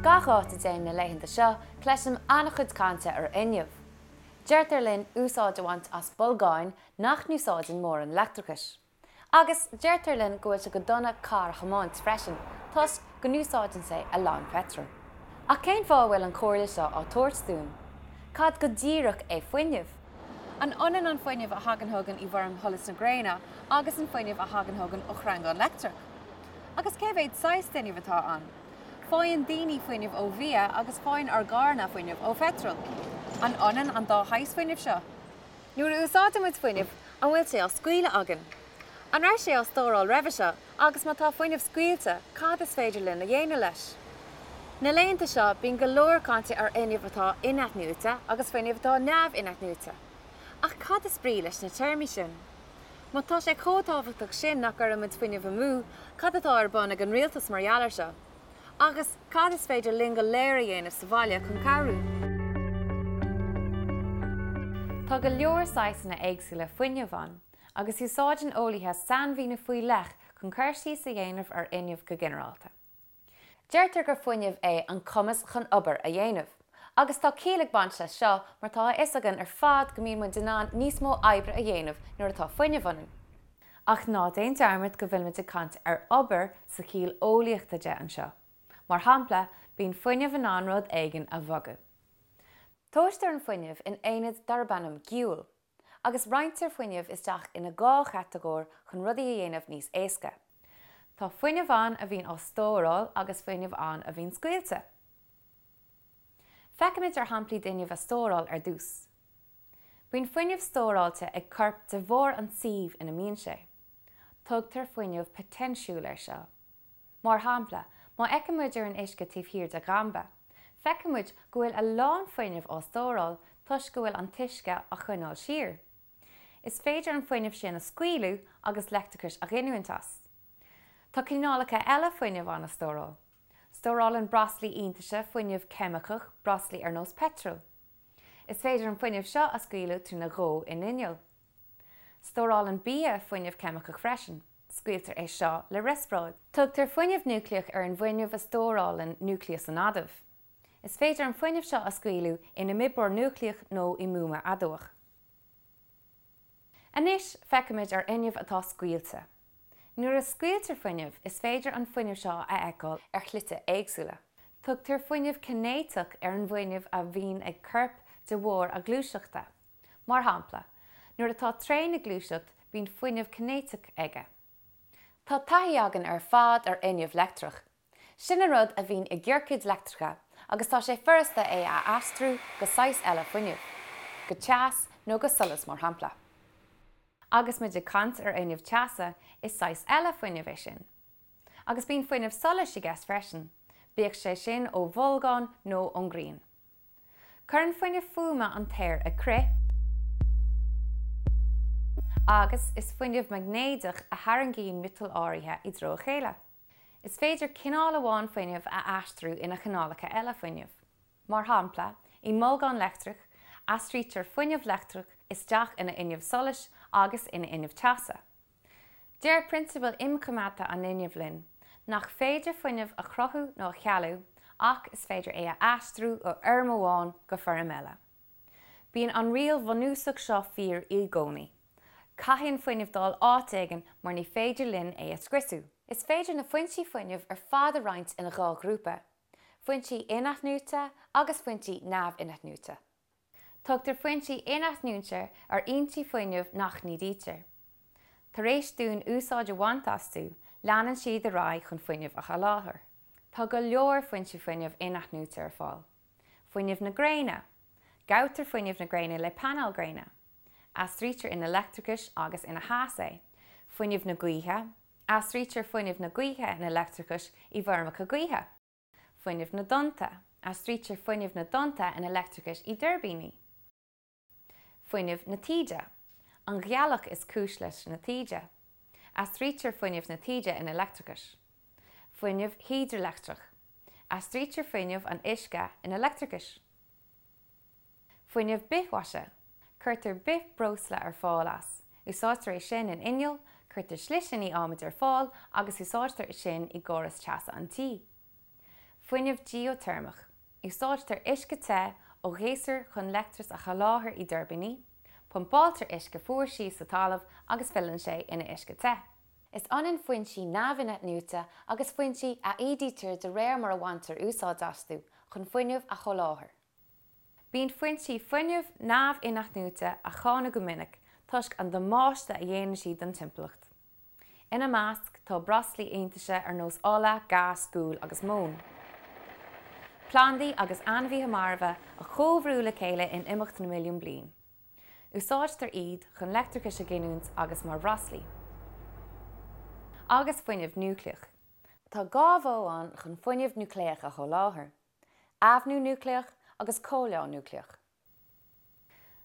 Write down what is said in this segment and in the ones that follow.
Gach áit a dtéim na laethanta seo, cloisim an-chuid cainte ar fhuinneamh. Deirtear linn úsáid a bhaint as bolgáin nach n-úsáideann mórán leictreachais. Agus deirtear linn go bhfuil sé go dona carr a thiomáint freisin, toisc go n-úsáideann sé a lán peitril. Ach cén fáth a bhfuil an chomhairle seo á tabhairt dúinn? Cad go díreach é fuinneamh? An ionann an fuinneamh a thagann chugainn i bhfoirm sholas na gréine agus an fuinneamh a thagann chugainn ó shreangán leictreach? Agus cé mhéad saghas d'fhuinneamh atá ann? Faigheann daoine fuinneamh ó bhia agus faigheann ár gcarranna fuinneamh ó pheitreal. An ionann an dá shaghas fuinnimh seo? Nuair a úsáideann muid fuinneamh, an bhfuil sé á scaoileadh againn? An raibh sé á stóráil roimhe seo agus má tá fuinneamh scaoilte, cad is féidir linn a dhéanamh leis? Na laethanta seo, bíonn go leor cainte ar fhuinneamh atá in-athnuaite agus fuinneamh atá neamh-inathnuaite. Ach cad is brí leis na téarmaí sin? Má tá sé chomh tábhachtach sin nach gcuireann muid fuinneamh amú, cad atá ar bun ag an rialtas mar gheall air seo? Agus cad is féidir linn go léir a dhéanamh sa bhaile chun cabhrú? Tá go leor saghsanna éagsúla fuinnimh ann, agus úsáideann eolaithe sainmhíniú faoi leith chun cur síos a dhéanamh ar fhuinneamh go ginearálta. Deirtear gur fuinneamh é an cumas chun obair a dhéanamh. Agus tá ciall ag baint leis seo mar tá a fhios againn ar fad go mbíonn muid in ann níos mó oibre a dhéanamh nuair atá fuinneamh ionainn. Ach ná déan dearmad go bhfuilimid ag caint ar obair sa chiall eolaíochta de anseo. Mar shampla, bíonn fuinneamh in ann rud éigin a bhogadh. Tomhaistear an fuinneamh in aonad darb ainm giúl. Agus roinntear fuinneamh isteach ina dhá chatagóir chun rudaí a dhéanamh níos éasca. Tá fuinneamh ann a bhíonn á stóráil agus fuinneamh ann a bhíonn scaoilte. Feicfimid ar shamplaí d'fhuinneamh a stóráil ar dtús. Bíonn fuinneamh stóráilte ag corp de bharr an tsuímh ina mbíonn sé. Tugtar fuinneamh poitéinsiúil air seo. Mar shampla, má fheiceann muid ar an uisce taobh thiar de dhamba, feicfidh muid go bhfuil a lán fuinnimh á stóráil toisc go bhfuil an t-uisce á choinneáil siar. Is féidir an fuinneamh sin a scaoileadh agus leictreachas a ghiniúint as. Tá cineálacha eile fuinnimh ann a stóráil. Stórálann breoslaí iontaise fuinneamh ceimiceach, breoslaí ar nós peitril. Is féidir an fuinneamh seo a scaoileadh trína dhó in inneall. Stórálann bia fuinneamh ceimiceach freisin. Scaoiltear é seo le riospráid. Tugtar fuinneamh núicléach ar an bhfuinneamh a stórálann núicléas an adaimh. Is féidir an fuinneamh seo a scaoileadh in imoibreoir núicléach nó i mbuama adamhach. Anois feicfimid ar fhuinneamh atá scaoilte. Nuair a scaoiltear fuinneamh, is féidir an fuinneamh seo a fheiceáil ar shlite éagsúla. Tugtar fuinneamh cinéiteach ar an bhfuinneamh a bhíonn ag corp de bharr a ghluaiseachta. Mar shampla, nuair atá traein ag gluaiseacht, bíonn fuinneamh cinéiteach aige. Tá taithí againn ar fad ar fhuinneamh leictreach. Sin an rud a bhíonn i gciorcaid leictreacha agus tá sé furasta é a aistriú go saghas eile fuinnimh, go teas nó go solas mar shampla. Agus muid ag caint ar fhuinneamh teasa, is saghas eile fuinnimh é sin. Agus bíonn fuinneamh solais i gceist freisin, bíodh sé sin ó bholgán nó ón ngrian. Cuireann fuinneamh fuaime an t-aer ag crith, agus is fuinneamh maighnéadach a tharraingíonn miotail áirithe i dtreo a chéile. Is féidir cineál amháin fuinnimh a aistriú ina chineálacha eile fuinnimh. Mar shampla, i mbolgán leictreach, aistrítear fuinneamh leictreach isteach ina fhuinneamh solais agus ina fhuinneamh teasa. Deir prionsabal imchoimeádta an fhuinnimh linn nach féidir fuinneamh a chruthú nó a chealú ach is féidir é a aistriú ó fhoirm amháin go foirm eile. Bíonn an riail bhunúsach seo fíor i gcónaí. Caithfidh an fuinneamh dul áit éigin mar ní féidir linn é a scriosadh. Is féidir na foinsí fuinnimh ar fad a roinnt ina dhá ghrúpa, foinsí in-athnuaite agus foinsí neamh-inathnuaite. Tugtar foinsí in-athnuaite ar fhoinsí fuinnimh nach n-ídítear. Tar éis dúinn úsáid a bhaint astu, leanann siad ar aghaidh chun fuinneamh a sholáthar. Tá go leor foinsí fuinnimh in-athnuaite ar fáil. Fuinneamh na gréine. Gabhtar fuinneamh na gréine le painéil gréine. Aistrítear ina leictreachas agus ina theas é. Fuinneamh na gaoithe. Aistrítear fuinneamh na gaoithe ina leictreachas i bhfeirmeacha gaoithe. Fuinneamh na dtonnta, Aistrítear fuinneamh na dtonnta ina leictreachas i dtuirbíní. Fuinneamh na taoide, An ghealach is cúis leis na taoide. Aistrítear fuinneamh na taoide ina leictreachas. Fuinneamh hidrileictreach, Aistrítear fuinneamh an uisce ina leictreachas. Fuinneamh bithmhaise, Cuirtear bithbhreosla ar fáil as. Úsáidtear é sin in innill, cuirtear slisíní adhmaid ar fáil agus úsáidtear sin i gcóras teasa an tí. Fuinneamh geoiteirmeach, Úsáidtear uisce te ó ghéasar chun leictreachas a sholáthar i dtuirbíní, pumpáiltear uisce fuar síos sa talamh agus filleann sé ina uisce te. Is ionann foinsí neamh-inathnuaite agus foinsí a ídítear de réir mar a bhaintear úsáid astu chun fuinneamh a sholáthar. Bíonn foinsí fuinnimh neamh-inathnuaite á cháineadh go minic toisc an damáiste a dhéanann siad don timpeallacht. Ina measc tá breoslaí iontaise ar nós ola, gás, gual agus móin. Plandaí agus ainmhithe marbha a chomhbhrú le chéile in imeacht na milliún bliain. Úsáidtear iad chun leictreachas a ghiniúint agus mar bhreoslaí. Agus fuinneamh núicléach. Tá 2 mhodh ann chun fuinneamh núicléach a sholáthar. Eamhnú núicléach agus comhleá núicléach.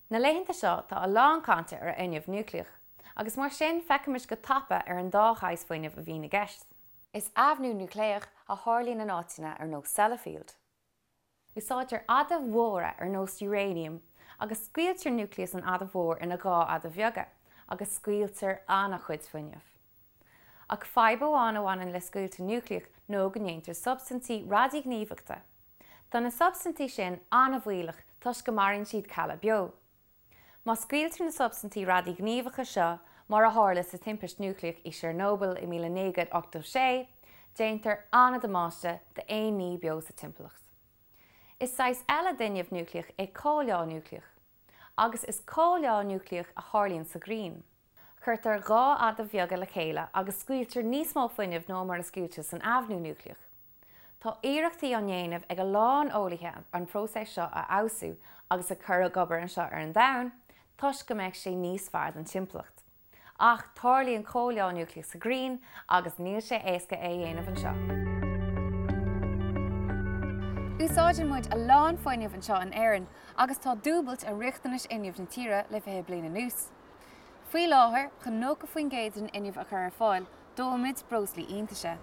Na laethanta seo tá a lán cainte ar fhuinneamh núicléach, agus mar sin feicfimis go tapa ar an dá shaghas fuinnimh a bhíonn i gceist. Is eamhnú núicléach a tharlaíonn in áiteanna ar nós Sellafield. Úsáidtear adaimh mhóra ar nós uranium agus scoiltear núicléas an adaimh mhóir ina 2 adamh bheaga agus scaoiltear an-chuid fuinnimh. Ach fadhb amháin a bhaineann le scoilteadh núicléach nó go ndéantar substaintí radaighníomhachta. Tá na substaintí sin an-bhaolach toisc go maraíonn siad cealla beo. Má scaoiltear na substaintí radaighníomhacha seo, mar a tharla sa timpist núicléach i Chernobyl i 1986, déantar an-damáiste d'aon ní beo sa timpeallacht. Is saghas eile d'fhuinneamh núicléach é comhleá núicléach. Agus is comhleá núicléach a tharlaíonn sa ghrian. Cuirtear 2 adamh bheaga le chéile agus scaoiltear níos mó fuinnimh ná mar a scaoiltear san eamhnú núicléach. Tá iarrachtaí á ndéanamh ag a lán eolaithe an próiseas seo a fheabhsú agus a chur ag obair anseo ar an Domhan toisc go mbeadh sé níos fearr don timpeallacht. Ach tarlaíonn comhleá núicléach sa ghrian agus níl sé éasca é a dhéanamh anseo. Úsáideann muid a lán fuinnimh anseo in Éirinn agus tá dúbailt ar riachtanais fhuinnimh na tíre le 20 bliain anuas. Faoi láthair, chun 90% den fhuinneamh a chur ar fáil, dóimid breoslaí iontaise.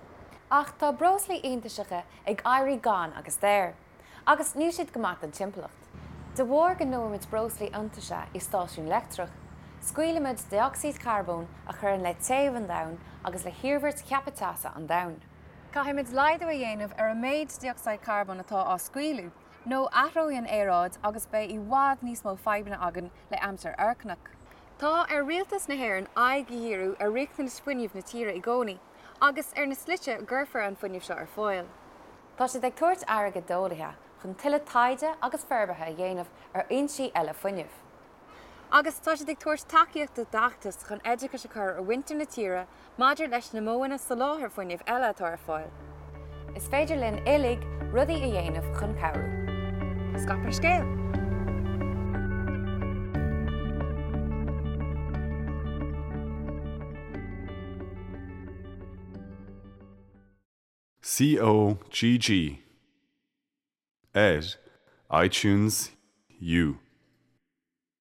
Ach tá breoslaí iontaiseacha ag éirí gann agus daor. Agus níl siad go maith don timpeallacht. De bharr go ndóimid breoslaí iontaise i stáisiún leictreach, scaoilimid dé-ocsaíd charbóin a chuireann le téamh an domhain agus le hiarmhairt cheaptha teasa an domhain. Caithfimid laghdú a dhéanamh ar an méid dé-ocsaíd charbóin atá á scaoileadh, nó athróidh an aeráid agus beidh i bhfad níos mó fadhbanna againn le aimsir fhoircneach. Tá ar Rialtas na hÉireann aghaidh a dhíriú ar riachtanais fuinnimh na tíre i gcónaí agus ar na slite a gcuirfear an fuinneamh seo ar fáil. Tá siad ag tabhairt airgid d'eolaithe chun tuilleadh taighde agus forbartha a dhéanamh ar fhoinsí eile fuinnimh. Agus tá siad ag tabhairt tacaíochta d'fheachtais chun oideachas a chur ar mhuintir na tíre maidir leis na modhanna soláthair fuinnimh eile atá ar fáil. Is féidir linn uilig rudaí a dhéanamh chun cabhrú. Scaip an scéal! COGG ar iTunes U.